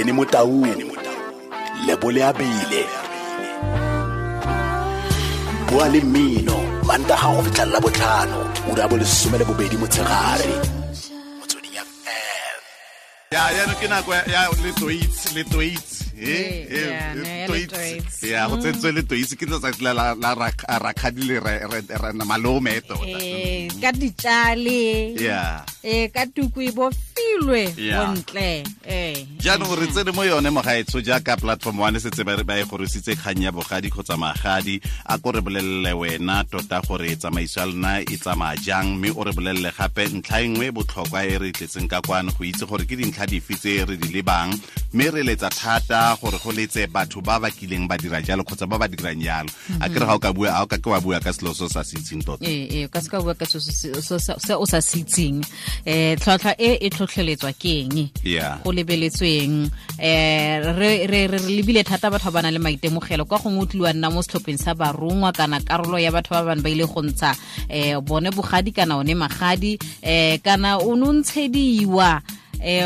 Benny Motaung, Lebo Leabile. Bua le mmino Mantaga go fitlha Labotlhano, ura ya bo 12 motshegare. Motsweding FM. Ya ke nako ya le Toits. Yeah, ne, ya le Ya go tsentswe le Toits ke letsatsi la rakgadi le re malome tota. Ka ditšale. Ka tuku e bofilwe bontle. Jaanong re tsene mo yone mogaetsho jaaka Platform One setse ba e gorositse kgang ya bogadi kgotsa magadi. A ko re bolelele wena tota gore tsamaiso ya lona e tsamaya jang, mme o re bolelele gape ntlha e nngwe e botlhokwa e re tletseng ka kwano go itse gore ke dintlha dife tse re di lebang, mme re letsa thata gore go letse batho ba ba kileng ba dira jalo kgotsa ba ba dirang jalo. A kere ga o ka bua, ga o ka ke wa bua ka selo se o sa se itseng tota. Ee, ka se ka bua ka se o sa se itseng. Tlhwatlhwa e e tlhotlheletswa ke eng? Go lebeletsweng. Re lebile thata batho ba ba nang le maitemogelo, kwa gongwe o tlile wa nna mo setlhopheng sa barongwa kana karolo ya batho ba bane ba ile go ntsha bone bogadi kana one magadi, kana o ne o ntshediwa,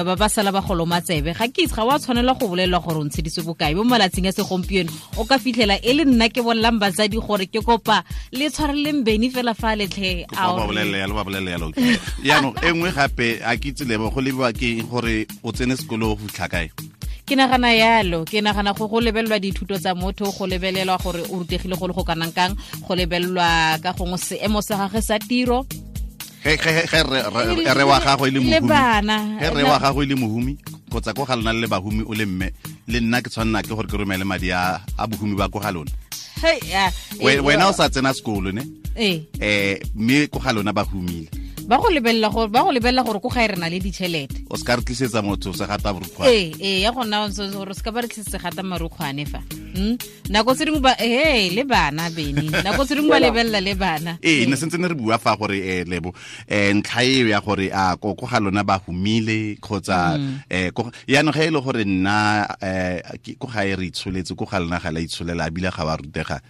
ba ba sala ba goloma tsebe. Ga ke itse, ga wa tshwanela go bolelelwa gore o ntsheditswe bokae. Mo malatsing a segompieno o ka fitlhela e le nna ke bolelang batsadi gore ke kopa le tshwareleng Beny fela fa letlhe. Ba bolelele yalo, ba bolelele yalo. Jaanong e nngwe gape a ke itse, Lebo, go lebiwa ke eng gore o tsene sekolo go fitlha kae? Ke nagana yalo, ke nagana go lebelelwa dithuto tsa motho, go lebelelwa gore o rutegile go le go kanang kang, go lebelelwa ka gongwe seemo sa gagwe sa tiro. Ge re wa gago e le Le mohumi, bana. ge re wa gago e le mohumi kgotsa ko ga lona le bahumi, o le mme le nna ke tshwanela ke gore ke romele madi a bohumi ba ko ga lona. Hey, ya, Wena o sa tsena sekolo ne? Ee. Mme ko ga lona ba humile. Ba go lebelela gore ko gae re na le ditšhelete. O se ka re tlisetsa motho se gata borukgwane. Ee, ya gona gore se ka ba re tlisetsa gata marukgwane fa. Nako tse dingwe ba he le bana, Beny, nako tse dingwe ba lebelela le bana. Ee, ne sentse ne re bua fa gore Lebo, ntlha eo ya gore a ko ga lona ba humile kgotsa yaanong ge e le gore nna ko gae re itsholetse, ko ga lona ga la itsholela ebile ga ba rutega.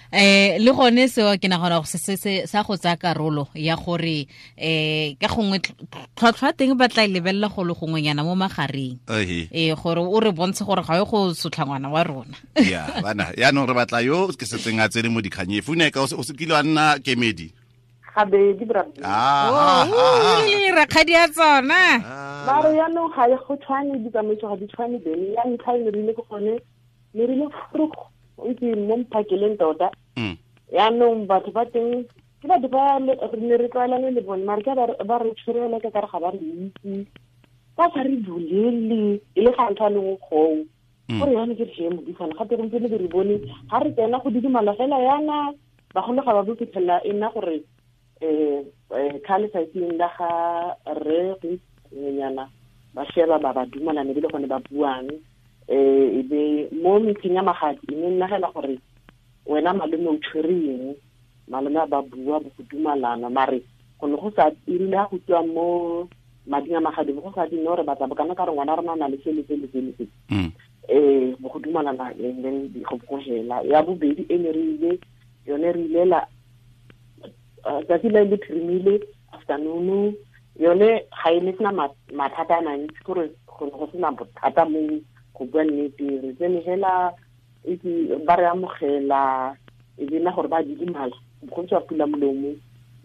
Le gone seo ke nagana gore se sa go tsaya karolo ya gore ka gongwe tlhwatlhwa teng ba tla e lebelela go le gongwenyana mo magareng. Gore o re bontshe gore ga o go sotla ngwana wa rona. Ya bana, yaanong re batla yo ke setseng a tsene mo dikganye fune ka o se kile wa nna kemedi. Gabedi, bra. Ah, ah, ah, ah. Rakgadi ya tsona. Mare yaanong ga e go tshwane, ditsamaiso ga di tshwane, Beny. Ya ntlha e ne rile ke gone ne rile vroeg, o itse, mo mphakeleng tota. Yaanong batho ba teng ke batho ba re ne re tlwaelane le bone, mare ke ba re tshwerele ka kare ga ba re itse, ba sa re bolele e le ga ntho a lengwe goo. Gore yane ke re modisana gape gompieno ke re bone ga re tsena go didimala fela yana, bagolo ga ba bo fitlhelela e nna gore ka letsatsing la ga rre go ngwenyana ba sheba ba dumalane be le gone ba buang. E be mo meeting ya magadi e ne nna fela gore wena malome o tshwere eng, malome a ba bua bo go dumalana, mare go ne go sa erile ga go tswa mo mading a magadi bo go sa dine gore batla bokana ka re ngwana rona o na le se le se le se le se. Bo go dumalana and then go hela. Ya bobedi e ne re ile yone, re ilela tsatsi le le phirimile afternoon, yone ga e ne sena mathata a mantsi, kore go ne go sena bothata mo go bua nnete. Re tsene hela itse ba re amogela, e be nna gore ba didimala, go tswa pula molomo,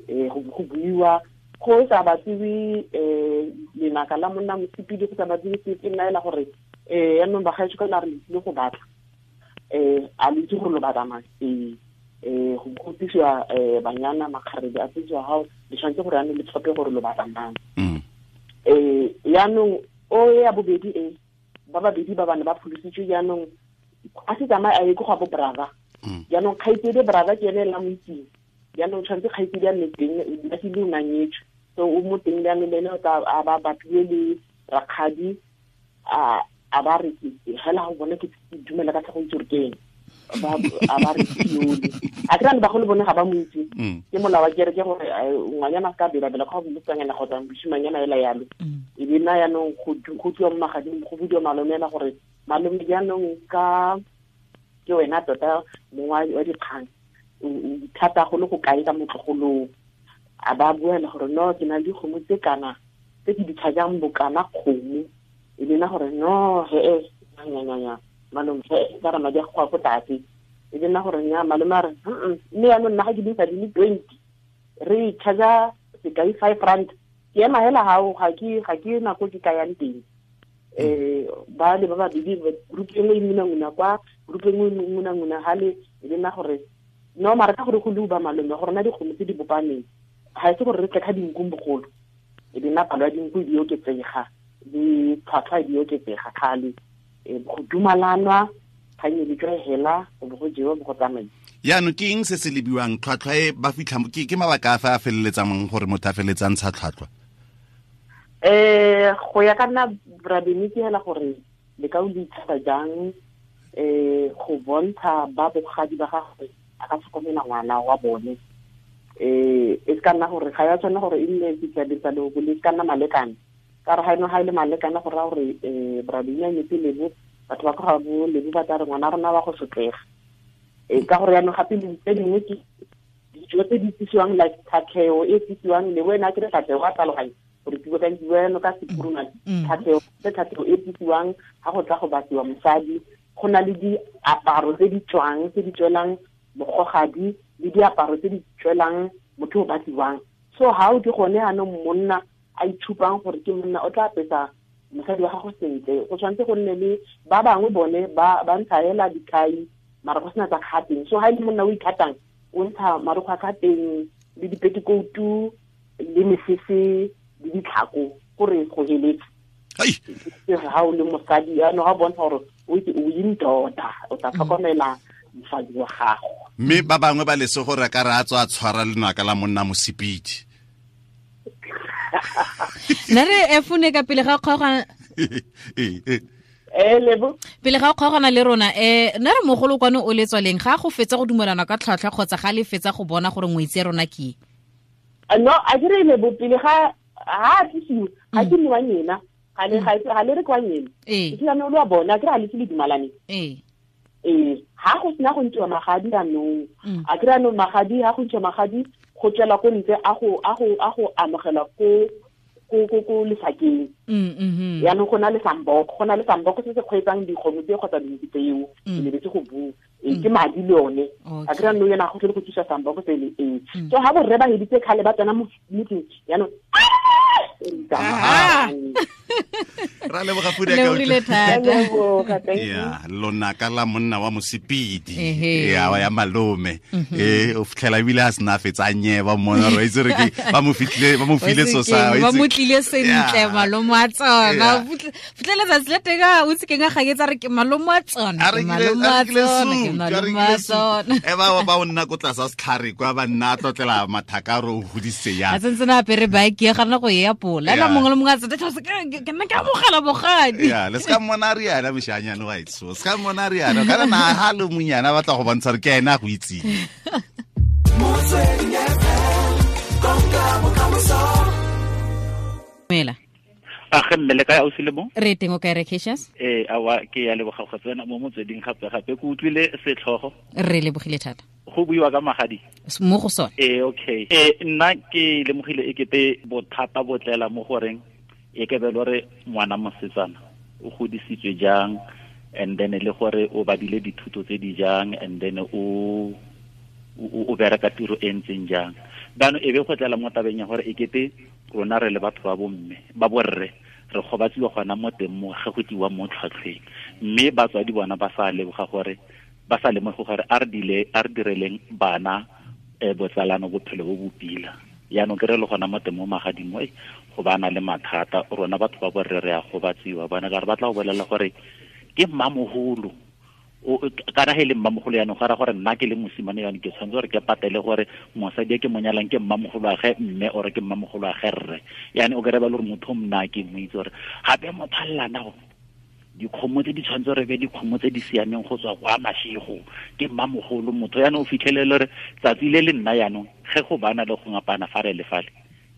go buiwa go sa batliwe lenaka la monna mosepedi, go sa batliwe sepe. Nna ela gore yaanong bagaetsho kana re tlile go batla, a le itse gore lo batla mang? Ee, go tlisiwa banyana, makgarebe a tlisiwa gao, le tshwanetse gore yaanong le tlhophe gore lo batla mang. Yaanong o ya bobedi e ba babedi ba bane ba pholositswe, jaanong a se tsamaye a ye ko ga bo brother. Jaanong kgaitsedi brother ke ene la mo itseng, jaanong tshwanetse kgaitsedi a nne teng, luckily o nanyetswe, so o mo teng. Jaanong le ene o tla a ba bapile le rakgadi, a ba re hela go bone ke dumela ka tlhago itse gore ke eng. A ba re yole a kry-a le bagolo bone ga ba mo itse. Ke molao wa kereke gore ngwanyana a se ka belabela ka go motsanyana kgotsa mosimanyana ela yalo. E be nna yaanong go tliwa mo magading, go budiwa malome ela gore malome jaanong ka ke wena tota mongwe wa dikgang, o thata go le go kae ka motlogolong? A ba buela gore no, ke na le dikgomo tse kana tse ke di tlhajang bokana kgomo. E le nna gore no he nya malome he ka re madi a go ko tlase. E le nna gore nya malome a re mme yaanong nna ga ke dintsha di le 20 re charge sekai 5 rand ke ema hela hao ga ke nako ke ka yang teng. Ba le ba babedi group e nngwe e ngunanguna kwa group e nngwe e ngunanguna hale e le nna gore no mara ka gore go le ba malome gore na dikgomo tse di bopaneng ga e se gore re tle ka dinkung bogolo e le nna palo ya dinku di oketsega le tlhwatlhwa di oketsega kgale go dumalanwa kgang e le hela go bo go jewa bo go tsamaisa. Yaanong ke eng se se lebiwang tlhwatlhwa e ba fitlha ke mabaka a fa a feleletsang gore motho a feleletsang ntsha tlhwatlhwa? Go ya ka nna Rabeni ke hela gore le ka o le itshasa jang go bontsha ba bogadi ba gagwe a ka tlhokomela ngwana wa bone. E ka nna gore ga ya tshwana gore e nne ditsa le go le ka nna malekane ka re ga eno ga ile malekane go ra gore Rabeni a nyetse lebo batho ba ka bo lebo ba tla re ngwana rona wa go sotlega. Ka gore yaanong gape tse dingwe ke dijo tse di tsisiwang like tlhatlheo e tsisiwang le wena ke re tlhatlheo a tlhaloganye gore ke bua ka ka sekurumane tlhatlheo tse tlhatlheo e tsisiwang ga go tla go batliwa mosadi go na le diaparo tse di tswang tse di tswelang mogogadi le diaparo tse di tswelang motho o batliwang. So ha o di gone anong monna a itshupang gore ke monna o tla apesa mosadi wa gago sentle go tshwanetse go nne le ba bangwe bone ba ntsha hela dikhai mara go sena tsa kgateng. So ha e le monna o ikgatang o ntsha marokgwe a kgateng le dipetikoutu le mesese le ditlhako gore go heletse. Ha o le mosadi yaanong ga bontsha gore o itse o indoda o tla tlhokomela mosadi wa gago. Mme ba bangwe ba lese gore ka re a tswa a tshwara lenaka la monna mosepedi. Nna re efune ka pele ga kgaogana lebo pele ga kgaogana le rona nna re mogolo kwane o le tswaleng ga go fetsa go dumelana ka tlhwatlhwa kgotsa ga le fetsa go bona gore ngwetsi ya rona ke no a dire lebo pele ga ha tlisiwe ga ke nne wa nyena ga le re kwa nyena ke tla lo bona ke ra le le dumalane ha go sena go ntshiwa magadi anong a kry anong magadi ha go ntshiwa magadi go tswela ko ntle a go amogela ko lefakeng. Yaanong go na le samboko se se kgweetsang dikgomo tse kgotsa dinku tseo ke lebetse go bua ke madi le one a kry anong yena go tlhole go thusa samboko sele so ha borre ba heditse kgale ba tsena mo motseng yaanong ra leboga pudi ka ya lonaka la monna wa mosepedi ya ya malome o fitlhela ebile a sena fetsa nyeba mona re itse re ke ba mo fitlile ba mo file so sa ba mo tlile sentle malome a tsona fitlhela tsatsi le teng o itse keng a gaketsa re ke malome a tsona ke malome a tsona ke malome a tsona e ba o nna ko tlasa setlhare kwa ba nna tlotlela mathaka re o godise ya a tsentse na apere bike ya gana go ya pola la mongwe le mongwe a tsetse ke nna ke amogela bogadi ya le ska mmona re yana moshanyane wa itso ska mmona re yana kana na ha le monyana batla go bontsha re ke ena go itseng. Mela a ge mme le kae ausi le mo re teng o kae re Cassius awa ke ya leboga go tsena mo motsweding gape gape ke utlwile setlhogo re lebogile thata go buiwa ka magadi mo go sone okay nna ke lemogile e kete bothata bo tlela mo goreng e ke be lore ngwana mosetsana o godisitswe jang and then le gore o badile dithuto tse di jang and then o bereka tiro e ntseng jang bano e be go tlela mo tabeng ya gore e kete rona re le batho ba bomme ba borre re gobatsiwa gona mo teng mo ge go tiwa mo tlhwatlhweng mme batswadi bona ba sa leboga gore ba sa lemoge gore a re direleng bana botsalano bophelo bo bopila yaanong ke re le gona mo teng mo magadimo go bana le mathata rona batho ba borre re a gobatsiwa bona ka re batla go bolela gore ke mmamogolo kana he le mmamogolo yaanong go ra gore nna ke le mosimane yaanong ke tshwanetse gore ke patele gore mosadi e ke monyalang ke mmamogolo wa ge mme ore ke mmamogolo wa ge rre yaanong o kry ba le gore motho o mna ke mo itse gore gape motho a llena go dikgomo tse di tshwanetse gore be dikgomo tse di siameng go tswa kwa mashego ke mmamogolo motho yaanong o fitlhelele gore tsatsi le le nna yaanong ge go bana le go ngapana fa re le fale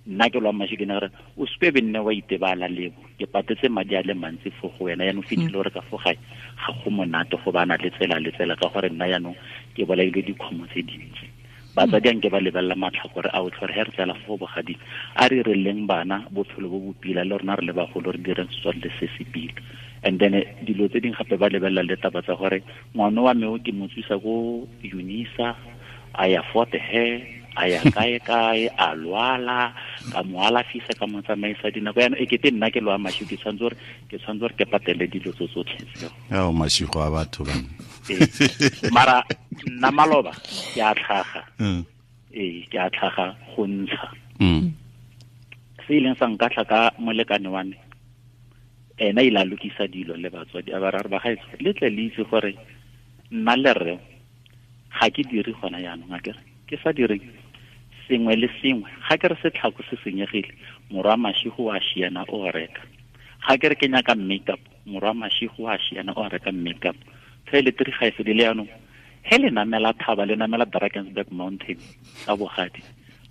nna ke lwa mashego ke ne gore o sepe be nne wa itebala lebo ke patetse madi a le mantsi fo go wena yaanong fitlhele gore ka fo gae ga go monate go bana le tsela le tsela ka gore nna yaanong ke bolaile dikgomo tse dintsi Batsadi anke ba lebelela matlhakore a otlhe gore he re tlela fo bogading a re releng bana bophelo bo bo pila le rona re le bagolo re direng setswalle se se pila. And then dilo tse dingwe gape ba lebelela le taba tsa gore ngwana wa me o ke mo tswisa ko Unisa a ya Fort Hare a ya kae kae a lwala ka mo alafisa ka mo tsamaisa dinako yana e kete nna ke lwa mashigo ke tshwanetse gore ke patele dilo tso tsotlhe tseo. Ao mashigo a batho ba. Mara nna maloba ke a tlhaga. Ke a tlhaga go ntsha. Se ileng sa nkatlha ka molekane wa me ena ile a lokisa dilo le batswadi a ba ra re ba gaetsho le tle le itse gore nna le rre ga ke dire gona jaanong a kere ke sa dire sengwe le sengwe ga ke re setlhako se senyegile morwa mashigo wa šiana o reka ga ke re ke nyaka makeup morwa mashigo wa šiana o reka makeup toiletry ga e fedile jaanong he le namela thaba le namela Drakensberg Mountain ka bogadi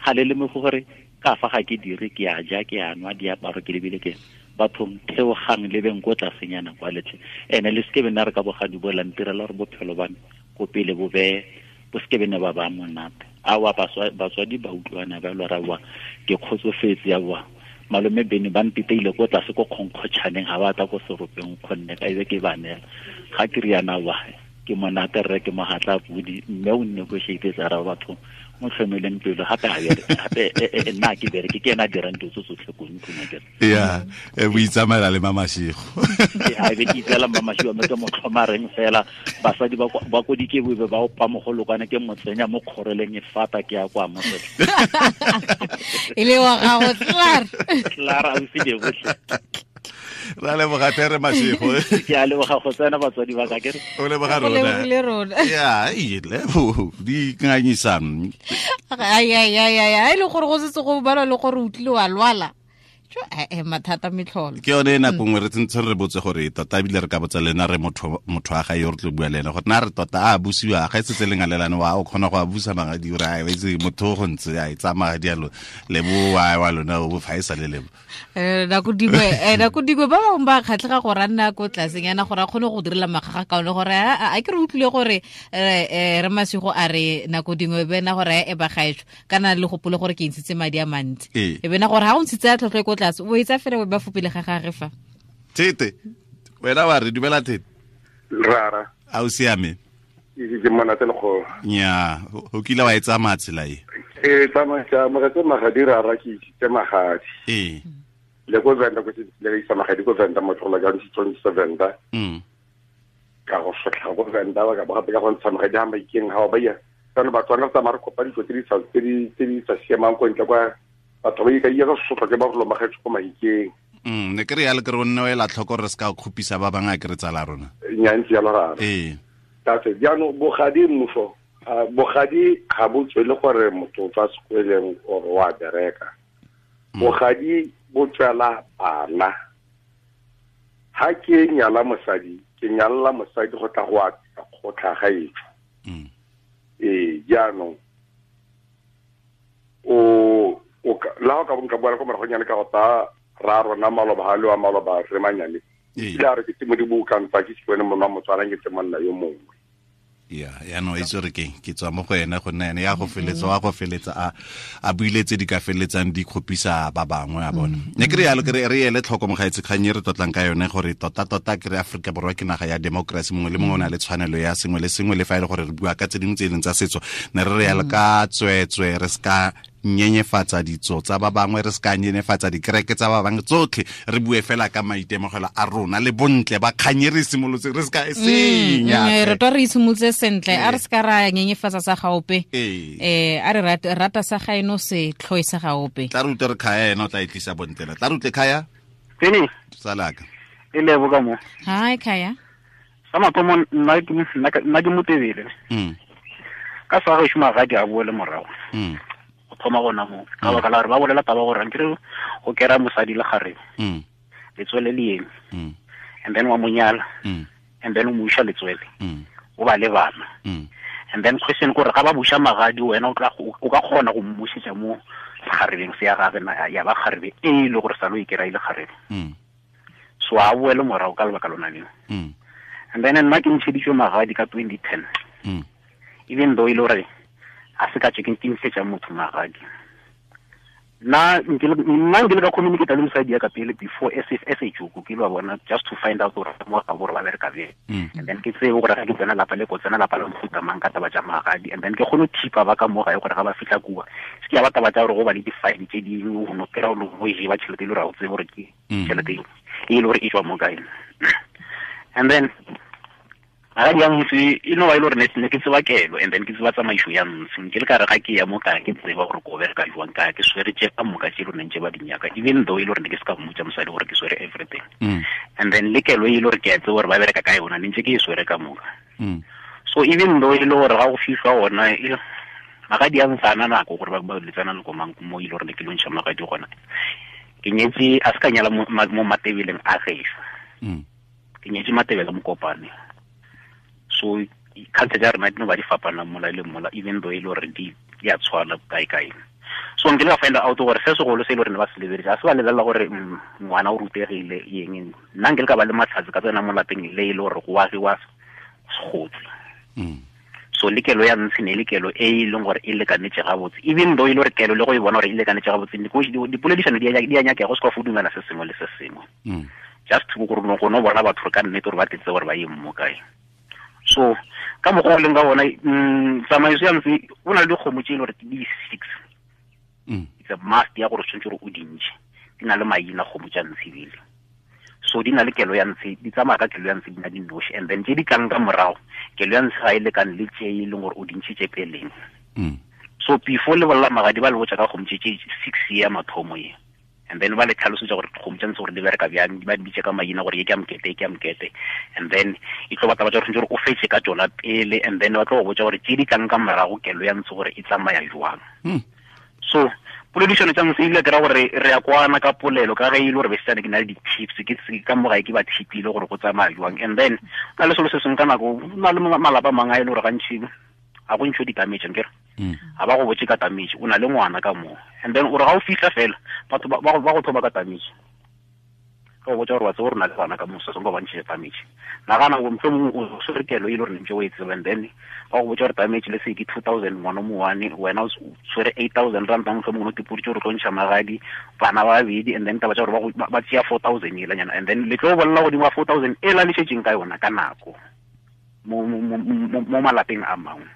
ga le lemoge gore ka fa ga ke dire ke a ja ke a nwa diaparo ke lebile ke bathong theogang le beng ko tlasenyana kwa letlhe ene le seke bena re ka bogadi bo lantirela gore bophelo ba me ko pele bo be bo seke bene ba ba monate awa batswadi ba utlwana ba lora wa ke kgotsofetse ya wa malome bene ba mpiteile ko tlase ko kgonkgotšhaneng ga ba tla ko seropeng kgonne ka ebe ke ba neela ga ke riana wa ke monate rre ke mogatla pudi mme o negotiate tsa ra batho mo tlhomeleng pelo gape gape nna ke bereke ke ena dirang dilo tso tsotlhe ko ntlong akere ya e boitsamaela le Mamashego a be ke itseela Mamashego mme ke mo tlhomareng fela basadi ba ko dikebobe ba opa mogolokwane ke mo tsenya mo kgoreleng e fata ke ya kwa mosetla e le wa gago tlar tlar a o se botlhe ra leboga tere Mashego ke a leboga go tsena batswadi ba ka ke re o leboga rona ya e lebo di nganyisang ai ai ai ai le gore go setse go balwa le gore o tlile wa lwala mathata metlholo ke yone nako nngwe re tsentse re botse gore tota ebile re ka botsa le ena re motho wa gae yo re tlo bua le ene gore na re tota a busiwa ga e setse le ngalelane wa o kgona go a busa magadi ore a itse motho go ntse a e tsaya magadi a lebo wa lona o fa e sa le lebo nako dingwe ba bangwe ba kgatlhega gore a nna ko tlasenyana gore a kgone go direla magaga kaone gore a ke re utlwile gore re Mashego a re nako dingwe bena gore e ba gaetsho kana le gopole gore ke ntshitse madi a mantsi e bena gore ha o ntshitse a tlhotlho ko tlase o etsa fela o ba fopele ga gage fa Tete wena wa re dumela Tete rara a o siame ke monate le go nya o kile wa e tsamaya tsela e e tsamaya ke amogetse magadi rara ke isitse magadi ee le ko Venda ko le isa magadi ko Venda motho la ka ntse sa Venda ka go sotlha go Venda ba ka ba gape ka go ntsha magadi ha maikeng ha ba ya kana Batswana tsa mare kopa ditso tse di sa siamang ko ntle kwa batho ba ka iya go sotlha ke ba go lomagetso ko maikeng ne ke re ya le ke re o nne o ela tlhoko re se ka khupisa ba bangwe a ke re tsala rona nya ntse ya rara ee tate jaanong bogadi mmuso bogadi ga bo tswele gore motho o tswa sekweleng or wa bereka bogadi bo tswela bana ha ke nyala mosadi ke nyalla mosadi go tla go atisa kgotlha ga etsho ee jaanong o la go ka bonka boela ko moragonyane ka go ta ra rona maloba ga le wa maloba re manyane ile a re ke te modimo o ka ntsa ke se wene monna Motswana ke te monna yo mongwe ya yaanong itse gore ke tswa mo go ene go nna ene ya go feletsa wa go feletsa a buile tse di ka feletsang di kgopisa ba bangwe a bona ne ke re yalo ke re ele tlhoko mogaetse kgang e re tlotlang ka yone gore tota-tota ke re Aforika Borwa ke naga ya democracy mongwe le mongwe o na le tshwanelo ya sengwe le sengwe le fa e le gore re bua ka tse dingwe tse e leng tsa setso ne re re yalo ka tsweetswe re se ka nyenyefatsa ditso tsa ba bangwe re se ka nyenyefatsa dikereke tsa ba bangwe tsotlhe re bue fela ka maitemogelo a rona le bontle ba kganye re simolotse re se ka e senya re twa re isimolotse sentle a re se ka ra nyenyefatsa sa gaope a re rata sa gaeno se tlhoe sa gaope tla re utlwe re Khaya ena o tla e tlisa bontle tla re utlwe Khaya Tene tsalaka e lebo ka mo hi Khaya sa mathomo nna ke motebele ka sa go šoma ga di a boele morago go thoma gona mo ka baka la gore ba bolela taba gore nkere go kera mosadi le kgarebe letswele le eme and then wa mo nyala and then o mo iša letswele o ba le bana and then question gore ga ba buša magadi wena o ka kgona go mmušetša mo kgarebeng se ya gage ya ba kgarebe e le gore sa lo e kera ile kgarebe so a boele morago ka lebaka lona leo and then nna ke ntšheditšwe magadi ka 2010 even though e le gore A se ka tse ke ntshetsa motho magadi. Nna nkile ka communicate le mosadi ya ka pele before as a joke ke lo bona just to find out gore mo ga gore ba bereka bjang. And then ke tsebe gore ga ke tsena lapa le ko tsena lapa la mofuta mang ka taba tša magadi. And then ke kgone go thipa ba ka mo gae gore ga ba fitlha kua se ke ya ba taba tša gore go ba le di-file tše dingwe go no kry-a o le go e ba tšhelete e le gore ga o tsebe gore ke tšhelete e le gore e tswa mo kae. And then magadi ya ntse e no ba e le gore ne ke tseba kelo and then ke tseba tsamaiso ya ntse nke le ka re ga ke ya mo ka ke tseba gore ko bereka jwang ka ke swere tše ka moka tše le neng tše ba di nyaka even though e le gore ne ke se ka mmotsa mosadi gore ke swere everything. And then le kelo e le gore ke a tseba gore ba bereka ka yona ne ntse ke e swere ka moka. So even though e le gore ga go fihlwa gona magadi a ntse a na nako gore ba letsana le komang mo e le gore ne ke lo ntšha magadi gona. Ke nyetse a se ka nyala mo Matebeleng a gešo. Ke nyetse Matebele Mokopane. So culture tša rena di no ba di fapana mola le mola even though e le gore di a tshwana kae kae. So nkile ka find out gore se segolo se e le gore ne ba se lebeletse a se ba lebelela gore ngwana o rutegile eng. Nna nkile ka ba le matlhatsi ka tsena mo lapeng le e le gore go agiwa segotsi. So le kelo ya ntshe ne le kelo e e leng gore e lekanetse gabotse even though e le gore kelo le go e bona gore e lekanetse gabotse dipoledišano di a nyakega go se ka fo dumela se sengwe le se sengwe. Just gore go no bona batho ka nnete gore ba tletse gore ba ye mo kae. So ka mokgwa o leng ka bona tsamaiso ya ntse o na le dikgomo tše e le gore ke di-six. It's a must ya gore o tshwanetse gore o di ntšhe. Di na le maina kgomo tša ntshe ebile. So di na le kelo ya ntshe, di tsamaya ka kelo ya ntshe di na di noši. And then tše di tlang ka morago kelo ya ntshe ga e lekane le tše e leng gore o di ntšhitše peleng. So before le bolela magadi ba le botša ka kgomo tše 6 ya mathomo ye. And then ba le tlhalosetsa gore kgomo tša ntse gore di bereka bjang, ba di bitse ka maina gore ye ke ya mokete, ye ke ya mokete. And then e tlo batla ba tša gore o fetse ka tšona pele and then ba tlo go botša gore tše di tlang ka morago kelo ya ntse gore e tsamaya jwang. So poledišano tša ntse ile ke ra gore re ya kwana ka polelo ka ge e le gore besetsane ke na le di-tips ke ka mo gae ke ba thipile gore go tsamaya jwang. And then na le selo se sengwe ka nako na le malapa a mangwe a e le gore gantši ga go ntšho di-damage nkere. Ga ba go botse ka damage o na le ngwana ka moo. And then o re ga o fitlha fela batho ba go thoma ka damage. Ka go botsa gore wa tseba gore o na le bana ka moo se sengwe ba ntšhitše damage. Nagana gore mohlomongwe o swere kelo e le gore ne ntse o e tseba and then ba go botsa gore damage le se ke 2000 ngwana o mowane wena o swere 8000 rand mohlomongwe o tipoditše gore o tlo ntšha magadi bana ba babedi and then taba tša gore ba tšea 4000 elanyana and then le tlo bolela godimo ga 4000 e la le šetšeng ka yona ka nako mo malapeng a mangwe.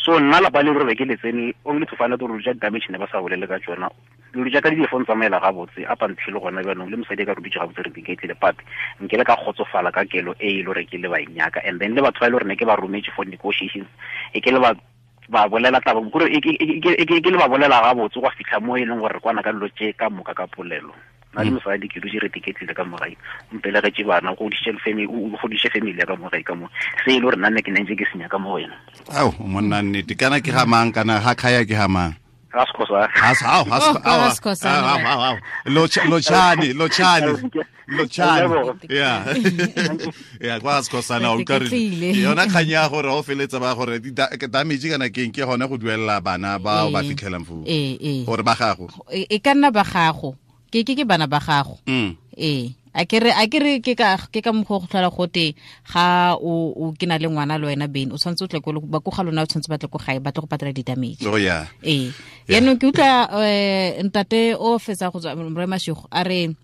So nna lapa le gore ke le tsene only to find out gore ja damage ne ba sa bolele ka tsona. Dilo tša ka di phone tsamaela gabotse up until gona jaanong le mosadi ka ruditse gabotse re diketlile but nke le ka kgotsofala ka kelo e e le gore ke le ba nyaka. And then le batho ba e le gore ne ke ba rometse for negotiations e ke le ba bolela taba gore e ke le ba bolela gabotse go fitlha mo e leng gore re kwana ka dilo tše ka moka ka polelo. Nna le mosadi ke dutse re tiketlile ka mogae o mpelegetše bana go godisitše family o godisitše family ya ka mogae ka mo se e le gore nna ne ke nentse ke senya ka mo wena. Ao monna nnete kana ke ga mang kana ga khaya ke ga mang? Ga Sekgosa. Ao Lotšhane yeah yeah kwa Sekgosana o ka re yona kgang ya gore o feletsa ba gore damage kana keng ke gone go duelela bana ba ba fitlhelang foo gore ba gago e ka nna ba gago ke ke bana ba gago. A ke re ke ka mokgwa go tlhola gote ga o ke na le ngwana le wena bene o tshwanetse o tle ko ba ko ga lona o tshwanetse ba tle ko gae ba tle go patela di-damage. Oh yeah. Yaanong ke utlwa ntate o fetsa go tswa Rre Mashego a re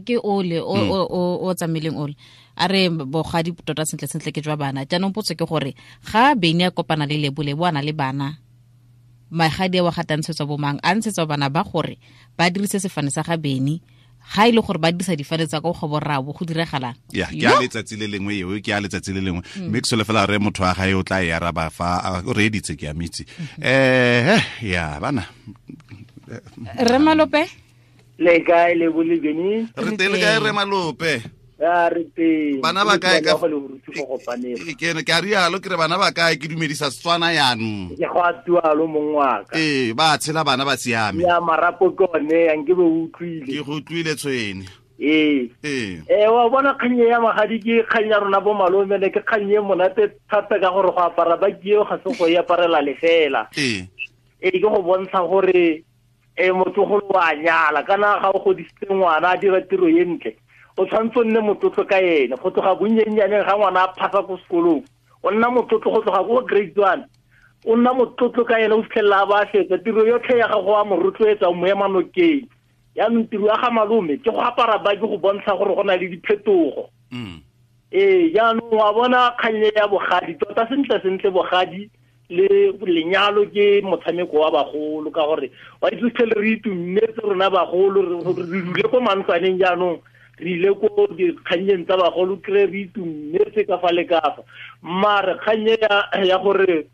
ke ole o tsamaileng ole a re bogadi tota sentle sentle ke jwa bana. Jaanong potso ke gore ga bene a kopana le Lebo, Lebo a na le bana magadi a wa gatantshetswa bomang a ntshetswa bana ba gore ba dirise sefane sa ga bene ga ile gore ba dirisa difane tsa go borrabo go diragalang. Ya ke a letsatsi le lengwe eo ke a letsatsi le lengwe mme ke solofela re motho wa gae o tla e araba fa o reeditse ke a mitse. Ya bana Rre Malope le kae le bolebeni re teng le kae Rre Malope? Ya re teng. Bana ba kae ka ke ne ke a rialo ke re bana ba kae ke dumedisa Setswana yanong. Ke go a tualo mong wa ka. Ba tshela bana ba siame. Ya marapo ke one yang ke be utlwile. Ke go utlwile tshwene. Wa bona kgang ya magadi ke kgang ya rona bo malome le ke kgang e monate thata ka gore go apara ba ke eo ga se go e aparela lefela. Ke go bontsha gore motlogolo wa nyala kana ga o godisitse ngwana a dira tiro e ntle o tshwanetse o nne motlotlo ka ene go tloga bonnyennyane ga ngwana a phasa ko sekolong o nna motlotlo go tloga ko grade 1 O nna motlotlo ka ene o fitlhelela a ba fetsa tiro yotlhe ya gago a mo rotloetsa o mo ema nokeng. Yaanong tiro ya ga malome ke go apara baki go bontsha gore go na le diphetogo. Ee, jaanong wa bona kgannye ya bogadi tota sentle sentle bogadi le lenyalo ke motshameko wa bagolo, ka gore wa itse fitlhele re itumetse rona bagolo, re dule ko mantlwaneng, jaanong re ile ko dikgannyeng tsa bagolo kry re itumetse ka fa le ka fa. Mare kgannye ya gore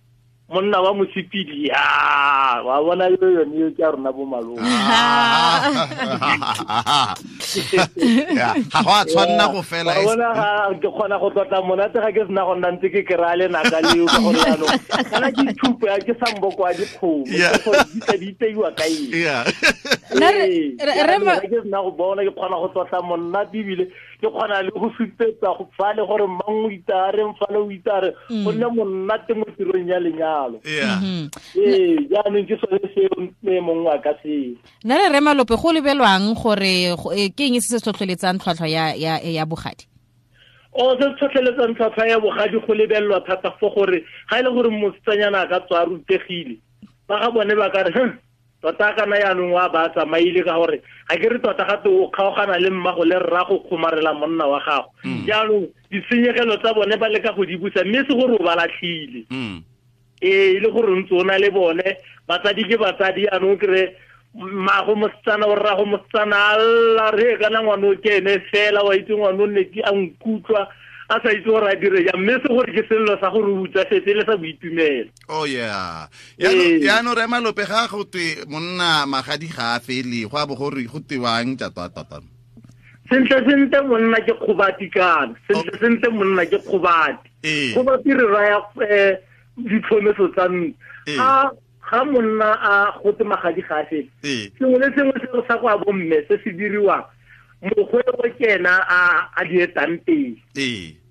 monna wa mosepedi, ya wa bona yo yone yo ke a rona bo malome. Ga go a tshwanna go fela. Wa bona ga ke kgona go tlotla monate ga ke sena go nna ntse ke kry-a lenaka leo, ka gore jaanong kana ke ithupo ya ke samboko wa dikgomo, ke gore di tla di iteiwa ka eng. Ga ke sena go bona ke kgona go tlotla monate, ebile ke kgona le go supetsa go fale gore mang o itare, mfale o itare, go nne monate mo tirong ya lenyalo. Ee, jaanong ke sone seo mongwe wa ka seo. Nna re re Malope, go lebelwang gore ke eng se se tlhotlheletsang tlhwatlhwa ya bogadi? O se se tlhotlheletsang tlhwatlhwa ya bogadi go lebelelwa thata fo gore ga e le gore mosetsanyana a ka tswa a rutegile, ba ga bone ba ka re tota kana yaanong wa ba tsamaile, ka gore ga ke re tota gape o kgaogana le mmago le rrago kgomarela monna wa gago. Jaanong ditshenyegelo tsa bone ba leka go di busa, mme se gore o ba latlhile. Ee, e le gore ntse o na le bone batsadi ke batsadi, yaanong kry mmago mosetsana o rrago mosetsana a lla re kana ngwana o ke ene fela, wa itse ngwana o nne ke a nkutlwa a sa itse gore a dire jang, mme se gore ke sello sa gore o utswafetse le sa boitumelo. Oh yeah. Yaanong re Malope, ga go twe monna magadi ga a fele, go a bo gore go tewang tota. Sentle sentle monna ke kgobati kana, sentle sentle monna ke kgobati. Kgobati re raya ditlhomeso tsa ntlo. Ga monna a gote magadi ga a fele, sengwe le sengwe se sa go a bomme se se diriwang, mokgwe o ke ena a di etang pele.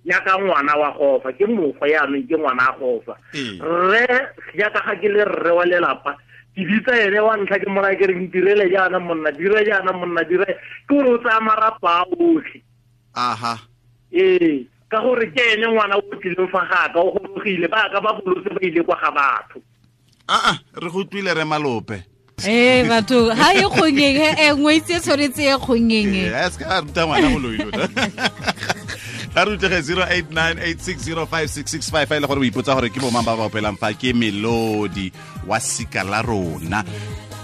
Jaaka ngwana wa gofa, ke mokgwe yaanong ke ngwana a gofa. Rre jaaka ga ke le rre wa lelapa, ke bitsa ene wa ntlha ke moraya ke re ntirele jaana monna, dire jaana monna, dire, ke gore o tsaya marapa a otlhe. Aha. Ee, ka gore ke ene ngwana o tlileng fa gaka, o gorogile, ba ka ba bolotse ba ile kwa ga batho. Re go utlwile re Malope. Ee, batho ha e kgongeng, ngwetsi e tshwanetse e kgongeng. Ee, se ka ruta ngwana go loilo. Ga re utlwege 0898605665 fa e le gore o ipotsa gore ke bomang ba ba opelang fa ke Melodi wa sika la rona.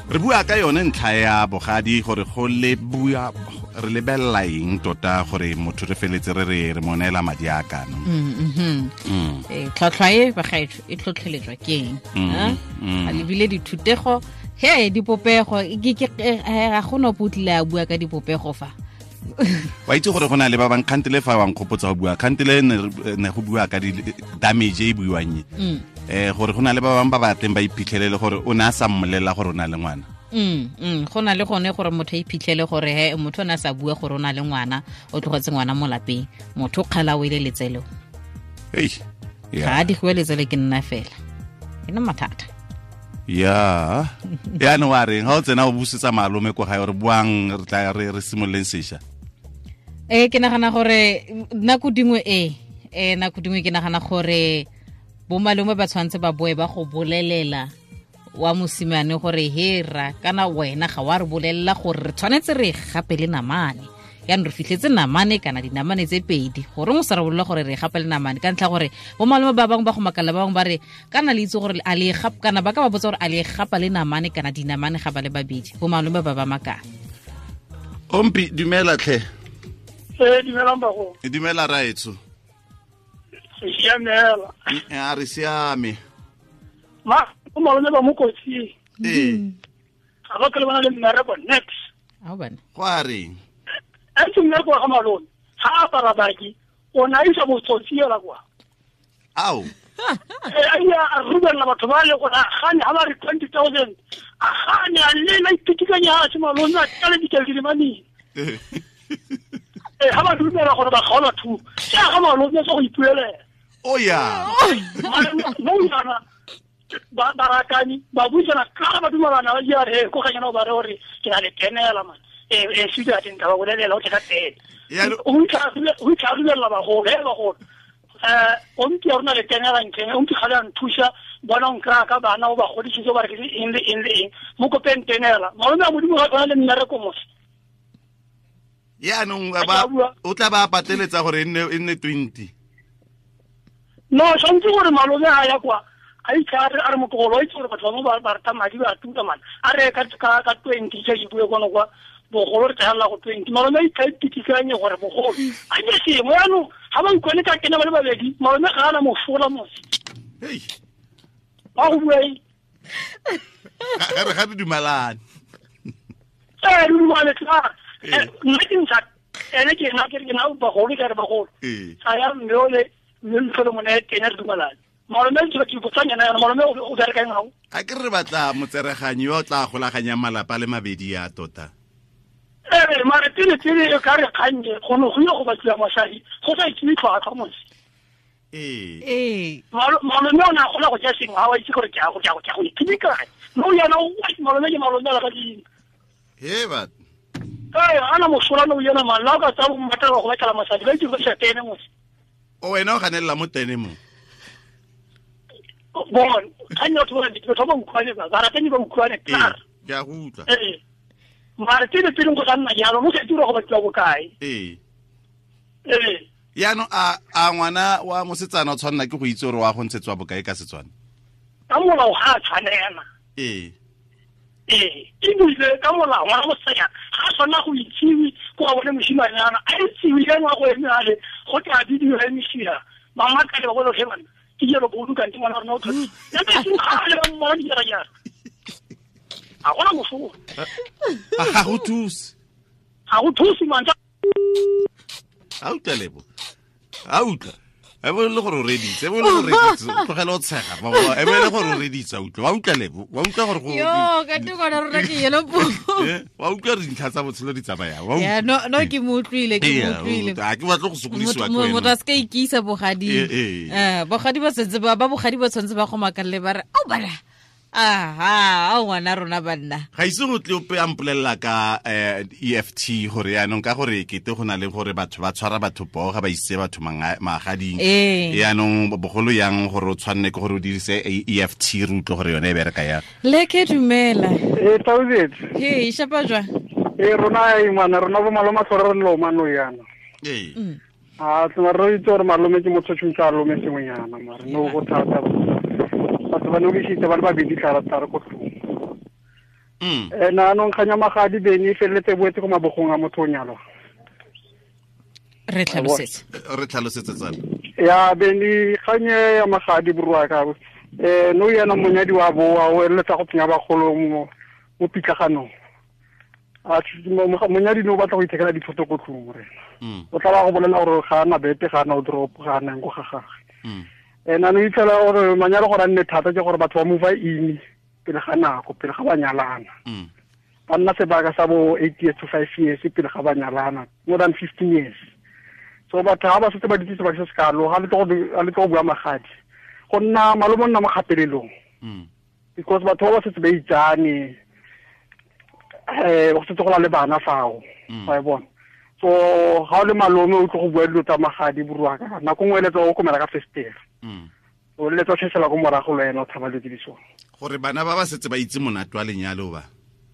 Re bua ka yone ntlha ya bogadi gore go le bua re lebelela eng tota gore motho re feletse re re mo neela madi a kana. Tlhwatlhwa e bagaetsho e tlhotlheletswa ke eng? A lebile dithutego, he dipopego, ga go no potlile a bua ka dipopego fa. Wa itse gore go na le ba bang kgantele fa wa nkgopotsa go bua, kgantele ne go bua ka di damage e buiwang e. Gore go na le ba bang ba batleng ba iphitlhelele gore o ne a sa mmolelela gore o na le ngwana. Go na le gone gore motho a iphitlhele gore he motho o ne a sa bua gore o na le ngwana, o tlogetse ngwana mo lapeng, motho o kgala o ile letselo. Ga a digiwe letsele ke nna fela. E nna mathata. Ya. Yaanong wa reng ga o tsena o busetsa malome ko gae gore buang re tla re simololeng sešwa? Ke nagana gore nako dingwe nako dingwe ke nagana gore bo malome ba tshwanetse ba boe ba go bolelela wa mosimane gore hera kana wena ga wa re bolelela gore re tshwanetse re gape le namane. Yaanong re fitlhetse namane kana dinamane tse pedi, gore o sa re bolelela gore re gape le namane, ka ntlha gore bo malome ba bangwe ba go makala, ba bangwe ba re kana le itse gore a le gapa, kana ba ka ba botsa gore a le gapa le namane kana dinamane ga ba le babedi, bo malome ba ba makala. Ompi, dumela tlhe. Dumelang bago. Dumela raetso. Siamela. A re siame. Ma, o malome ba mo kotsing. Ga ba tlhole ba na le mmereko next. A bana. Go a reng? A ntse mmereko wa ga malome, ga a apara baki, o ne a isa botsotsi ela kwa. Ao. A ile a rubelela batho ba le gore a gane ga ba re 20,000, a gane a lela ipitikanya a se malome a tlale dikeledi di maneng. Ga ba dumela gore ba kgaola thuo, ke a ga malome tsa go ipuelela. Oh yeah. Mo yana ba barakani ba buisana ka ba dumelana ba ja re ko ganyana ba re gore ke na le tenela man. E suda teng ba bolelela o tla teng. O itlha ba go he ba go. O mpi ya rona le tenela ntlheng, o mpi ga le a nthusa, bona o nkry-a ka bana o ba godisitse ba re ke eng le eng le eng. Mo kopeng tenela. Malome a Modimo ga tshwana le mmereko mose. Yaanong o tla ba pateletsa gore e nne 20. No, tshwanetse gore malome a ya kwa a itse a re motlogolo a itse gore batho ba bangwe ba rata madi ba tuka mane. A re ka 20 tse ke bue kono kwa bogolo re tla go 20. Malome a itse a itikikanye gore bogolo a ke sengwe yaanong ga ba utlwane ka kena ba le babedi malome ga ana mosola mose. Hei. Ba go bua eng? Ga re ga re dumalane. Re dumalane tla. Nna ke ntsha ene ke nna ke re ke na bagolo ke re bagolo. Sa ya mme o le mme ntlhole mone teng re dumalane. Malome ke ke botsanyana yana malome o bereka eng gago? A ke re batla motsereganyi yo o tla golaganyang malapa le mabedi ya tota. Mare pele pele e ka re kgannye go ne go ile go batliwa mosadi go sa itsewe tlhwatlhwa mose. Ee. Malome o ne a kgona go ja sengwe ga wa itse gore ke a go ja go ithibe kae. No yana o malome ke malome la ka ding. He bat. Ana mosola no yena man la ka tsa go mmatla go batla mosadi ba itse go sa tene mose. O wena o ganelela mo tene mo. Bon, kgannye batho ba batho ba utlwane ba ratani ba utlwane tla. Ke a go utlwa. Mare pele pele go nna jalo mo se dira go batliwa bokae. Ee. Yaanong a ngwana wa mosetsana o tshwanela ke go itse gore wa go ntshetswa bokae ka Setswana? Ka molao ga a tshwanela. Ee. Ebile ka molao ngwana mosetsana ga a tshwanela go itsiwe ko ga bone mosimanyana a itsiwe ka ngwa go eme ale go tla bidiwa emisia ba ngaka le ba bone bana ke jalo bo kante ngwana rona o tlhotse. Ya ke seng ga le ba mmona dijara-jara. A gona mosola. Ga go thuse. Ga go thuse mantswe. A utlwa Lebo. A utlwa. E bo le gore o reditse, e bo le gore reditse, tlogela o tshega. E bo le gore o reditse, utlwa. Wa utlwa Lebo, wa utlwa gore go Yo, ka te gona rona ke yelo po. Wa utlwa re dintlha tsa botshelo di tsamaya. Wa utlwa. Ya, no ke mo utlwile, ke mo utlwile. A ke batla go sokodisiwa ke wena. Motho a se ka ikisa bogadi. Bogadi ba setse ba bogadi ba tshwanetse ba go makalle ba re, "Au bana." Aha, a ngwana rona banna. Ga ise go tle ope a mpolelela ka EFT gore yaanong ka gore kete go na le gore batho ba tshwara batho poo ga ba isitse batho magading. Yaanong bogolo yang gore o tshwanne ke gore o dirise EFT re utlwe gore yone e bereka yang. Le ke dumela. Thousand. Hey, shapa jwa. Rona e ngwana rona bo maloma tlhore re loma no yana. A tsena re itse gore malome ke motho tshwantse a lome sengwenyana mare no go thata. Batho ba no ke ba le babedi tla re ko tlong. Na anong kganya magadi bene e feleletse boetse ko mabogong a motho o nyalwa. Re tlhalosetse. Re tlhalosetse tsala. Ya bene kganye ya magadi borwa ka. No yena monyadi wa boa o eletsa go tsenya bagolo mo pitlaganong. A monyadi no batla go ithekela dithoto ko tlong re. O tla ba go bolela gore ga ana bete ga ana o drop ga ana go ga gagwe. Ena no itlhela gore manyalo gore a nne thata ke gore batho ba move in pele ga nako pele ga ba nyalana. Ba nna sebaka sa bo 8 years to 5 years pele ga ba nyalana, more than 15 years. So batho ga ba setse ba ditse sebaka se se kalo ga le tlo go bua magadi. Go nna malome o nna mo kgapelelong. Because batho ba ba setse ba itsane go setse go na le bana fao. Wa e bona. So ga o le malome o tlo go bua dilo tsa magadi boruaka nako nngwe eletsa o komela ka festere. O eletsa o tshesela ko morago le wena o tshaba dilo tse di sone. Gore bana ba ba setse ba itse monate wa lenyalo ba.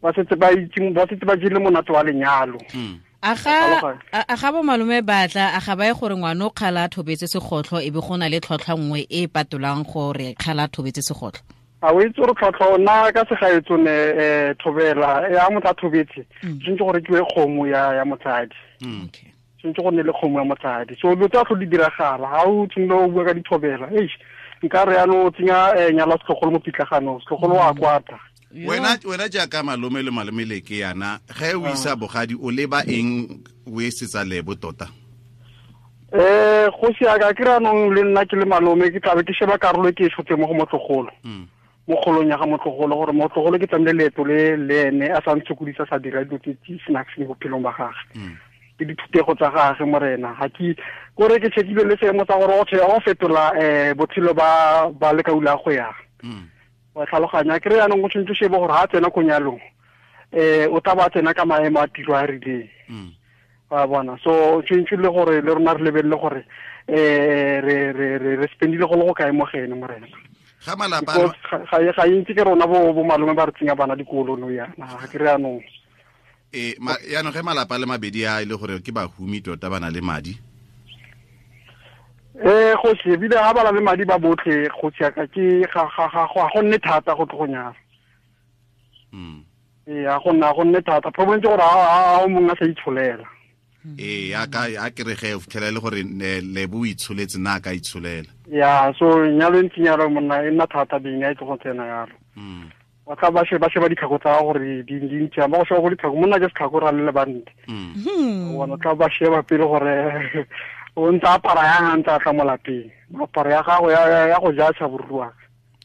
Ba setse ba itse ba setse ba jele monate wa lenyalo. A ga bo malome batla a ga ba ye gore ngwana o kgala a thobetse segotlho e be go na le tlhotlhwa nngwe e patolang gore kgala a thobetse segotlho. A o itse gore tlhotlhwa nna ka segaetso ne thobela ya motho a thobetse tshwanetse gore ke kgomo ya motsadi. Okay. Tshwanetse go nne le kgomo ya motsadi. So dilo tsa tlho di diragala ga o tshwanela o bua ka dithobela. Eish nka re yanong o tsenya nyala setlogolo mo pitlaganong setlogolo wa kwata. Wena jaaka malome le malome le ke yana ge o isa bogadi o leba eng o e setsa Lebo tota? Go siaka ke re anong le nna ke le malome ke tlabe ke sheba karolo e ke e tshotse mo go motlogolo. Mo kgolong ya ga motlogolo gore motlogolo ke tlamehile leeto le le ene a sa ntshokodisa sa dira dilo tse di snacks mo bophelong ba gagwe. Ke dithutego tsa gagwe morena ga ke kore ke checkile le seemo tsa gore o fetola botshelo ba lekaula go ya. Wa tlhaloganya ke re yanong go tshwanetse shebe gore ha tsena ko nyalong o tla ba tsena ka maemo a tiro a rileng. Wa bona so tshwantse le gore le rona re lebelele gore re spendile go le go kae mo gene morena. Ga malapa ga intsi ke rona bo malome ba re tsenya bana dikolo no yana ga ke re anong. Yaanong ge malapa le mabedi a ile gore ke bahumi tota ba na le madi. Go se bile ha ba na le madi ba botlhe go tsaka ke ga go nne thata go tlo go nyala. Ga go nne thata. Problem ke gore a o mongwe a sa itsholela. A ka ke re ge o fitlhela le gore lebo o itsholetse na ka itsholela. Ya so nyalo ntse nyalo monna e nna thata beng a itse go tsena yalo. Ba tla ba sheba ditlhako tsa gore di ntse ba go sheba go ditlhako monna ke setlhako ra le bante. Bona tla ba sheba pele gore o ntse apara yang a ntse a tla mo lapeng. Apara ya gago ya go ja tsha boruwa.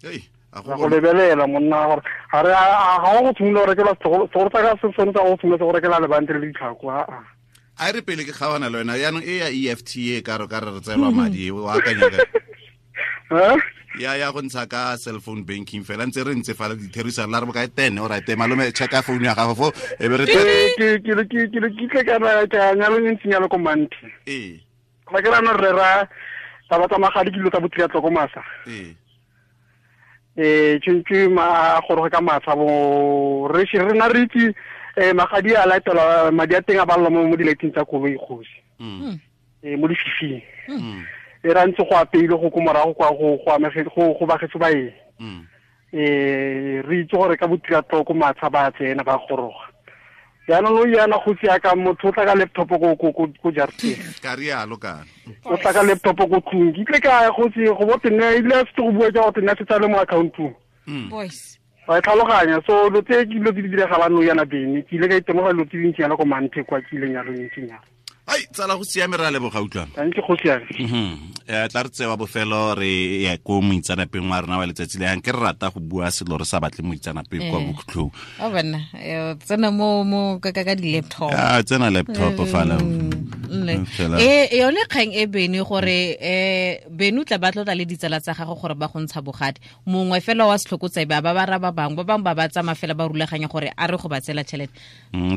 Go lebelela monna gore ga re ga go tshimolola go rekela setlhoko tsa ka se tshwanetse go tshimolola go rekela lebante le ditlhako a. A re pele ke kgawana le wena yaanong e ya EFT e ka re re tseelwa madi o akanya ka. Ya go ntsha ka cell phone banking fela ntse re ntse fala ditherisano la re bokae 10 o right malome checka phone ya gago fo e be re ke tle ka ka nyalo ntse nyalo ko manthe. Ba ke rana re ra taba tsa magadi ke dilo tsa botriatlo ko masa. Tshwantse ma goroge ka matsha bo re re na re itse magadi a latela madi a teng a balwa mo dilating tsa koloi kgosi. Mo dififing. E ra ntse go apeile go ko morago kwa go amege go bagetso ba eng. Re itse gore ka botriatlo ko matsha ba tsena ba goroga. Jaanong o yana go tsia ka motho o tla ka laptop ko jarateng. Ka rialo kana. O tla ka laptop ko tlung. Ke tle ka go tsi go bo tenne ile se go bua ka go tenne se tsale mo accountong. Boys. Ba tlhaloganya so lo tse ke dilo di diragalang no yana bene. Ke ile ka itemoga lo tse dintsi yana ko manthe kwa ke ileng ya lo ntsi nyana. Ai tsala go siame re a leboga utlwana. Thank you go siame. Tla re tsewa bofelo re ya ko moitsanapeng wa rona wa letsatsi le yang ke re rata go bua selo re sa batle moitsanapeng kwa bokhutlong. O bana tsena mo ka di laptop. Tsena laptop fala. Yone kgang e bene gore bene o tla ba tlotla le ditsala tsa gago gore ba go ntsha bogadi. Mongwe fela wa setlhokotsebe ba ba ra ba bangwe ba bangwe ba ba tsamaya fela ba rulaganya gore a re go ba tsela tšhelete.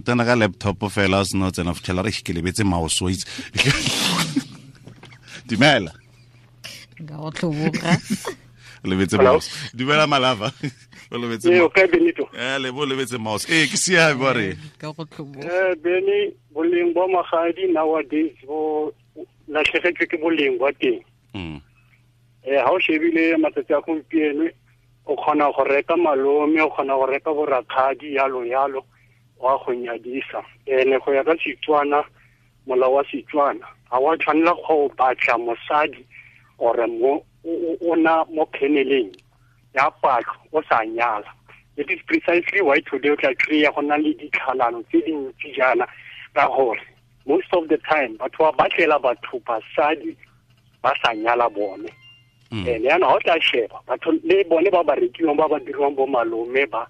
Tsena ka laptop fela o seno tsena fitlhela re ke lebetse mouse o itse. Dumela. Nka go tlhoboga. Lebetse mouse. Dumela malava. O lebetse mouse. Okay Benito. Lebo lebetse mouse. Ke siame ba re. Ka go tlhoboga. Beni boleng ba magadi nowadays bo latlhegetswe ke boleng ba teng. Ha o shebile matsatsi a gompieno o kgona go reka malome, o kgona go reka borakgadi yalo yalo wa go nyadisa. Ene go ya ka Setswana, molao wa Setswana ga wa tshwanela go batla mosadi ore mo o na mo kheneleng ya patlo o sa nyala. It is precisely why today o tla kry-a go na le ditlhalano tse dintsi jaana ka gore most of the time batho ba batlela batho basadi ba sa nyala bone. Ene yana ga o tla sheba batho le bone ba ba rekiwang ba ba diriwang bo malome ba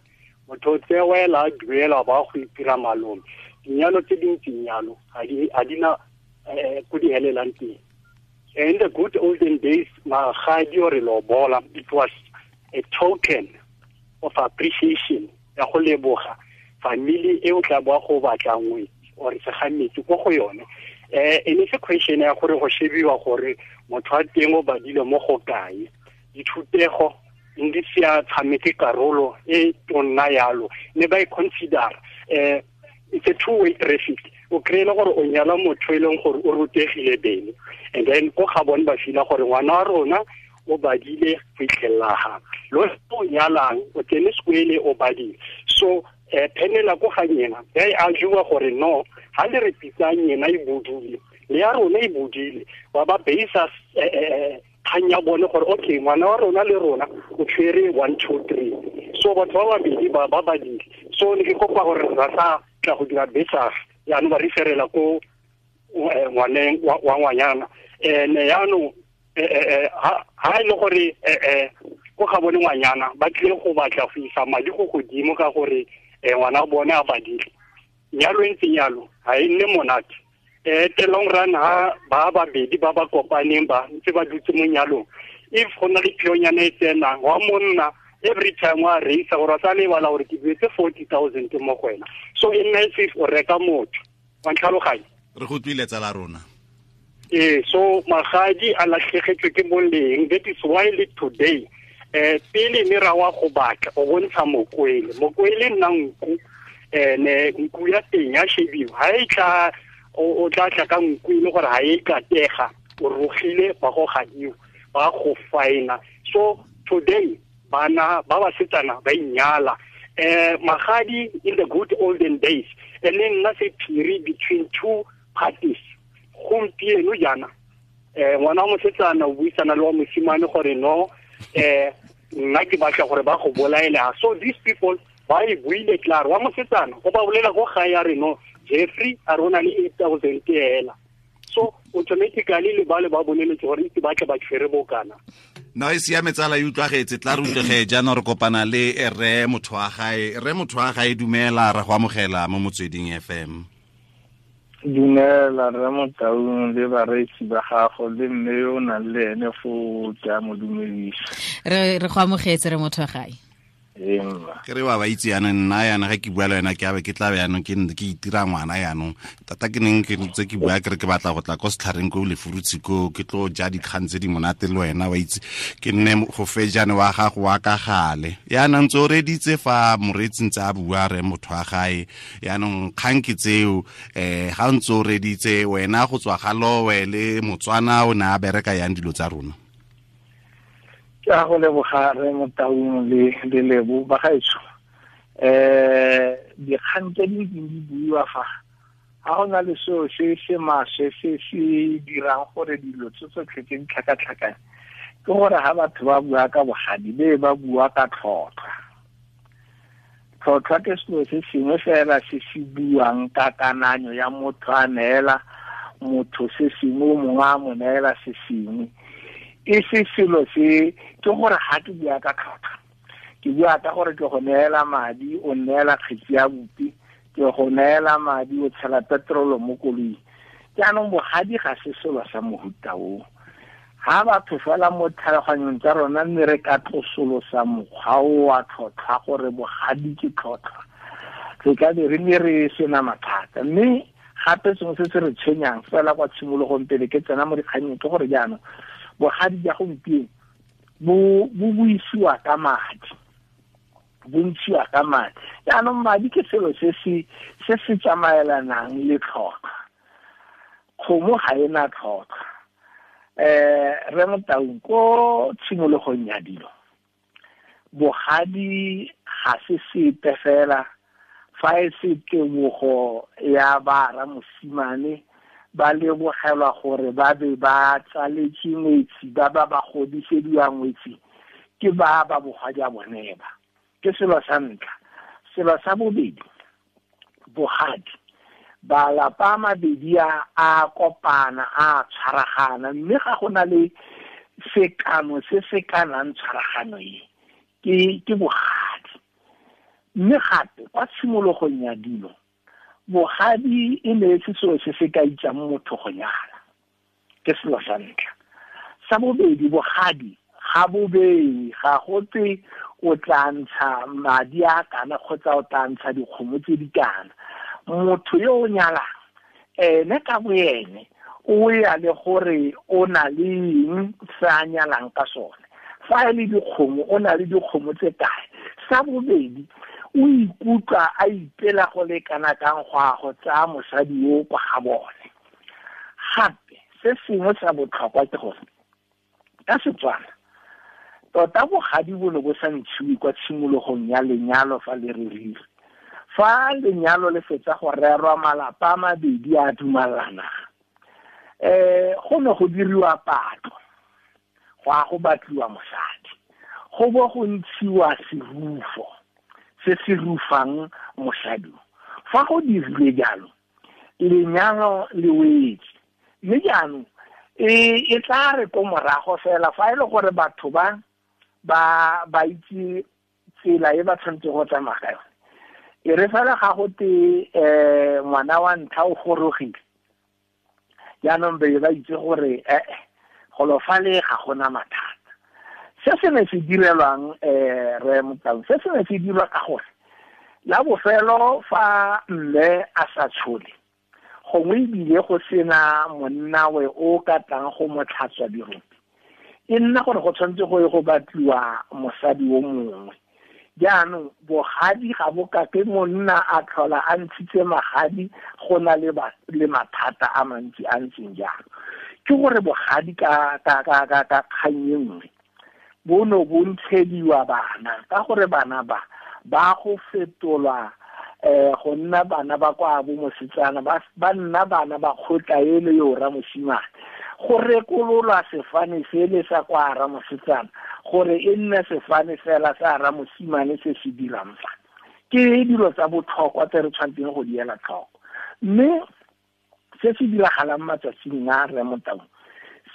motho o tsewela a duela ba go itira malome. Dinyalo tse dintsi nyalo ga di na ko di helelang teng. In the good olden days, magadi or lobola, it was a token of appreciation ya go leboga family e o tla boa go batla ngwe or segametsi ko go yone. E ne se question ya gore go shebiwa gore motho a teng o badile mo go kae. Dithutego ndi se a tshameke karolo e tonna yalo ne ba e consider it's a two-way traffic. O kry-ile gore o nyala motho e leng gore o rutegile bene, and then ko ga bone ba fila gore ngwana wa rona o badile go itlhelela ga lo o nyalang o tsene sekwele o badile. So phenela ko ga nyena ya e argue gore no ha le re pitsang yena e bodile le ya rona e bodile ba ba base kgang ya bone gore okay ngwana wa rona le rona o tshwere 1 2 3. So batho ba babedi ba ba badile. So ne ke kopa gore ra sa tla go dira besa yaanong ba referela ko ngwaneng wa ngwanyana. Ene yaanong ha e le gore ko ga bone ngwanyana ba tlile go batla go isa madi go godimo ka gore ngwana bone a badile. Nyalo e ntseng yalo ga e nne monate. The long run ha ba babedi ba ba kopaneng ba ntse ba dutse mo nyalong, if go na le phionyana e tsenang wa monna every time wa reisa gore a sa lebala gore ke duetse 40,000 mo go wena. So e nna if o reka motho wa ntlhaloganya. Re go tlile tsala rona. So magadi a latlhegetswe ke boleng. That is why le today pele ne ra wa go batla o bontsha mokwele. Mokwele nna nku ne nku ya teng ya shebiwa. Ha e tla o tla tla ka nku ile gore ha e katega o rogile ba go gadiwa ba go faina. So today bana ba basetsana ba inyala magadi in the good olden days and then nna se phiri between two parties. Gompieno jaana ngwana wa mosetsana o buisana le wa mosimane gore no nna ke batla gore ba go bolaela. So these people ba e buile klaar wa mosetsana go ba bolela go gae ya re no Jeffrey a rona le 8000 ela. So automatically le ba le ba boleletse gore itse ba tle ba tshwere bokana. No e siame tsala e utlwagetse tla re utlwege jaanong re kopana le rre motho wa gae. Rre motho wa gae dumela re go amogela mo Motsweding FM. Dumela rre Motaung le bareetsi ba gago le mme yo o nang le ene foo ke a mo dumedisa. Re go amogetse re motho wa gae. Ke re wa ba itse yana nna yana ga ke bua le wena ke abe ke tla be yanong ke itira ngwana yanong tata ke neng ke ntse ke bua ke re ke batla go tla ko setlhareng ko lefurutshi ko ke tlo ja dikgang tse di monate le wena wa itse ke nne go fejane wa gago wa ka gale yana ntse o reditse fa moreetsi ntse a bua re motho wa gae yanong kgang ke tseo ga ntse o reditse wena go tswa ga lowe le Motswana o ne a bereka yang dilo tsa rona. Ke a go leboga re Motaung le Lebo ba gaetsho. Dikgang tse di ntseng di buiwa fa ga go na le seo se se maswe se se dirang gore dilo tse tsotlhe tse di tlhakatlhakane ke gore ga batho ba bua ka bogadi be ba bua ka tlhotlhwa. Tlhotlhwa ke selo se sengwe fela se se buang ka kananyo ya motho a neela motho se sengwe o mongwe a mo neela se sengwe. E se selo se ke gore ga ke bua ka tlhotlhwa ke bua ka gore ke go neela madi o neela kgetsi ya bupi ke go neela madi o tshela petrolo mo koloing. Jaanong bogadi ga se selo sa mohuta o. Ga batho fela mo tlhaloganyong tsa rona mme re ka tlosolosa mokgwa o wa tlhotlhwa gore bogadi ke tlhotlhwa re ka be re ne re sena mathata. Mme gape sengwe se se re tshwenyang fela kwa tshimologong pele ke tsena mo dikganyeng ke gore jaanong bogadi ja gompieno bo buisiwa ka madi, bo ntshiwa ka madi. Jaanong madi ke selo se se tsamaelanang le tlhotlhwa. Kgomo ga e na tlhotlhwa. Rre Motaung ko tshimologong ya dilo bogadi ga se sepe fela fa e se tebogo ya bara mosimane ba lebogelwa gore ba be ba tsaletse ngwetsi ba ba ba godisediwa ngwetsi ke ba ba bogadi a bone ba. Ke selo sa ntlha. Selo sa bobedi, bogadi balapa a mabedi a kopana a tshwaragana mme ga go na le sekano se se kanang tshwaragano e ke bogadi. Mme gape kwa tshimologong ya dilo bogadi e ne se selo se se ka itsang motho go nyala. Ke selo sa ntlha. Sa bobedi, bogadi ga bobedi ga go twe o tla ntsha madi a kana kgotsa o tla ntsha dikgomo tse di kana. Motho yo o nyalang ene ka boene o ya le gore o na le eng se a nyalang ka sone. Fa e le dikgomo o na le dikgomo tse kae. Sa bobedi, o ikutlwa a ipela go le kana kang go a go tsaya mosadi yo kwa ga bone. Gape se sengwe sa botlhokwa ke gore ka Setswana tota bogadi bo ne bo sa ntshiwe kwa tshimologong ya lenyalo fa le rerile. Fa lenyalo le fetsa go rerwa malapa a mabedi a dumalana go ne go diriwa patlo go a go batliwa mosadi go bo go ntshiwa serufo se se rufang mosadi. Fa go dirilwe jalo lenyalo le wetse. Mme jaanong e tla re ko morago fela fa e le gore batho ba ba itse tsela e ba tshwanetse go tsamaya ka yone. E re fela ga go te ngwana wa ntlha o gorogile jaanong be ba itse gore golo fale ga gona mathata. Se se ne se direlwang re Motaung, se se ne se dirwa ka gore la bofelo fa mme a sa tshole gongwe ebile go sena monnawe o ka tlang go mo tlhatswa dirope, e nna gore go tshwanetse go ye go batliwa mosadi o mongwe. Jaanong bogadi ga bo ka ke monna a tlhola a ntshitse magadi, go na le mathata a mantsi a ntseng jalo. Ke gore bogadi ka kgang e nngwe bo no bo ntshediwa bana, ka gore bana ba go fetolwa go nna bana ba kwa bo mosetsana, ba nna bana ba kgotla ele yo ra mosimane. Go rekololwa sefane sele sa kwa ra mosetsana gore e nne sefane fela sa ra mosimane se se dirang fa. Ke dilo tsa botlhokwa tse re tshwanetseng go di ela tlhoko. Mme se se diragalang matsatsing a re Motaung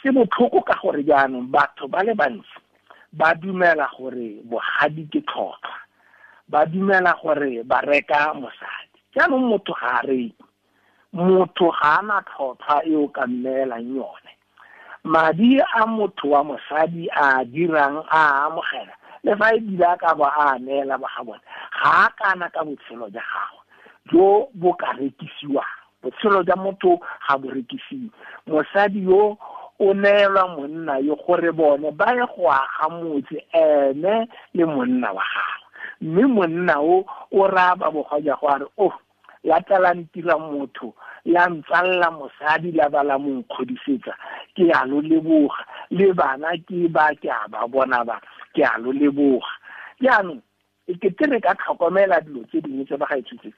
se botlhoko ka gore jaanong batho ba le bantsi ba dumela gore bogadi ke tlhotlhwa, ba dumela gore ba reka mosadi. Jaanong motho ga a reke, motho ga ana tlhotlhwa e o ka mmeelang yone. Madi a motho wa mosadi a dirang a amogela, le fa e bile a ka ba a neela ba ga bone, ga a kana ka botshelo jwa gagwe jo bo ka rekisiwang. Botshelo jwa motho ga bo rekisiwe. Mosadi yo o neelwa monna yo gore bone ba ye go aga motse ene le monna wa gagwe. Mme monna o raya ba bogadi go a re, oh, la tla la ntira motho, la ntsalla mosadi, la ba la mo nkgodisetsa, ke a lo leboga, le bana ke ba ke a ba bona ba, ke a lo leboga. Jaanong e kete re ka tlhokomela dilo tse dingwe tse ba ga ithutse.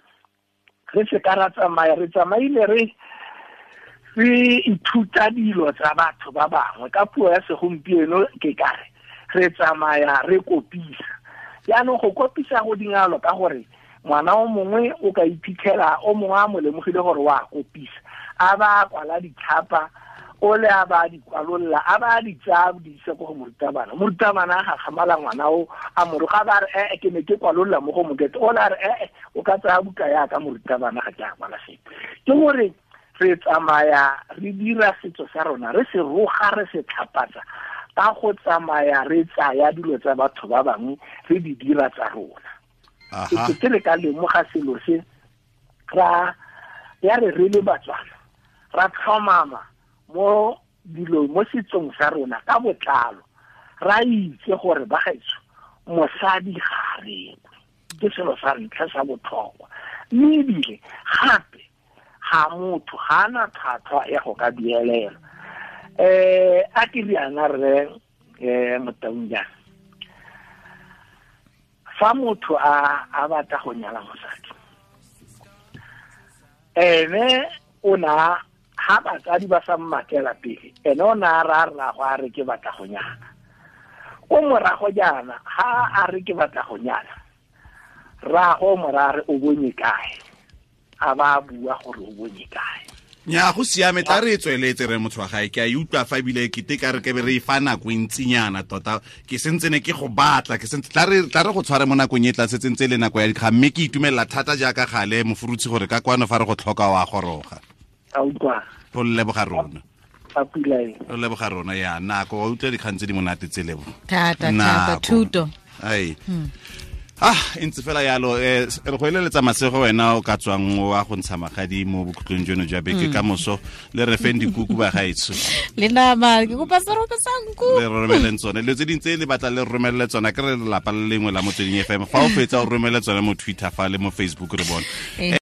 Re se ka ra tsamaya, re tsamaile re ithuta dilo tsa batho ba bangwe. Ka puo ya segompieno ke kare re tsamaya re kopisa. Jaanong go kopisa go dingalo ka gore ngwana o mongwe o ka iphitlhela o mongwe a mo lemogile gore wa kopisa, a ba kwala ditlhapa, o le a ba di kwalolla, a ba di tsaya di isa ko go morutabana. Morutabana a gakgamala ngwana o a mo roga, ba re ke ne ke kwalolla mo go mokete, o le a re o ka tsaya buka yaka morutabana, ga ke a kwala sepe. Ke gore re tsamaya re dira setso sa rona, re se roga, re se tlhapatsa ka go tsamaya re tsaya dilo tsa batho ba bangwe re di dira tsa rona. Ke re ka lemoga selo se, ra ya re re le Batswana ra tlhomama mo dilo mo setsong sa rona ka botlalo, ra itse gore ba gaetsho mosadi ga a rekwe, ke selo sa ntlha sa botlhokwa. Mme ebile gape ga motho ga ana tlhwatlhwa ya go ka duelela. A ke riana rre Motaung jaana, fa motho a batla go nyala mosadi, ene o na ha batsadi ba sa mmatlela pele, ene o na a ra rrago a re ke batla go nyala. Ko morago jaana ha a re ke batla go nyala, rrago morare o bonye kae, a ba bua gore o bonye kae. Nya go siame, tla re tsweletse re motho wa gae, ke a e utlwa fa ebile ke te ka re ke be re e fa nako e ntsinyana tota, ke sentse ne ke go batla, ke sentse tla re go tshware mo nakong e tla setse ntse le nako ya dikgang, mme ke itumelela thata jaaka gale Mofurutshi gore ka kwano fa re go tlhoka wa goroga. A utlwa. O leboga rona. A pula e. O leboga rona ya nako, wa utlwa dikgang tse di monate tse lebo. Thata thata thuto. Ai. Ah, ntse fela yalo, re go eleletsa masego wena o ka tswang wa go ntsha magadi mo bokhutlong jono jwa beke ka moso, le re feng dikuku ba gaetsho. Le nama, ke kopa serope sa nku. Le romeleng tsone, dilo tse dingwe tse le batla le romelele tsona, ke re lelapa le lengwe la Motsweding FM. Fa o fetsa o romele tsone mo Twitter fa le mo Facebook re bone.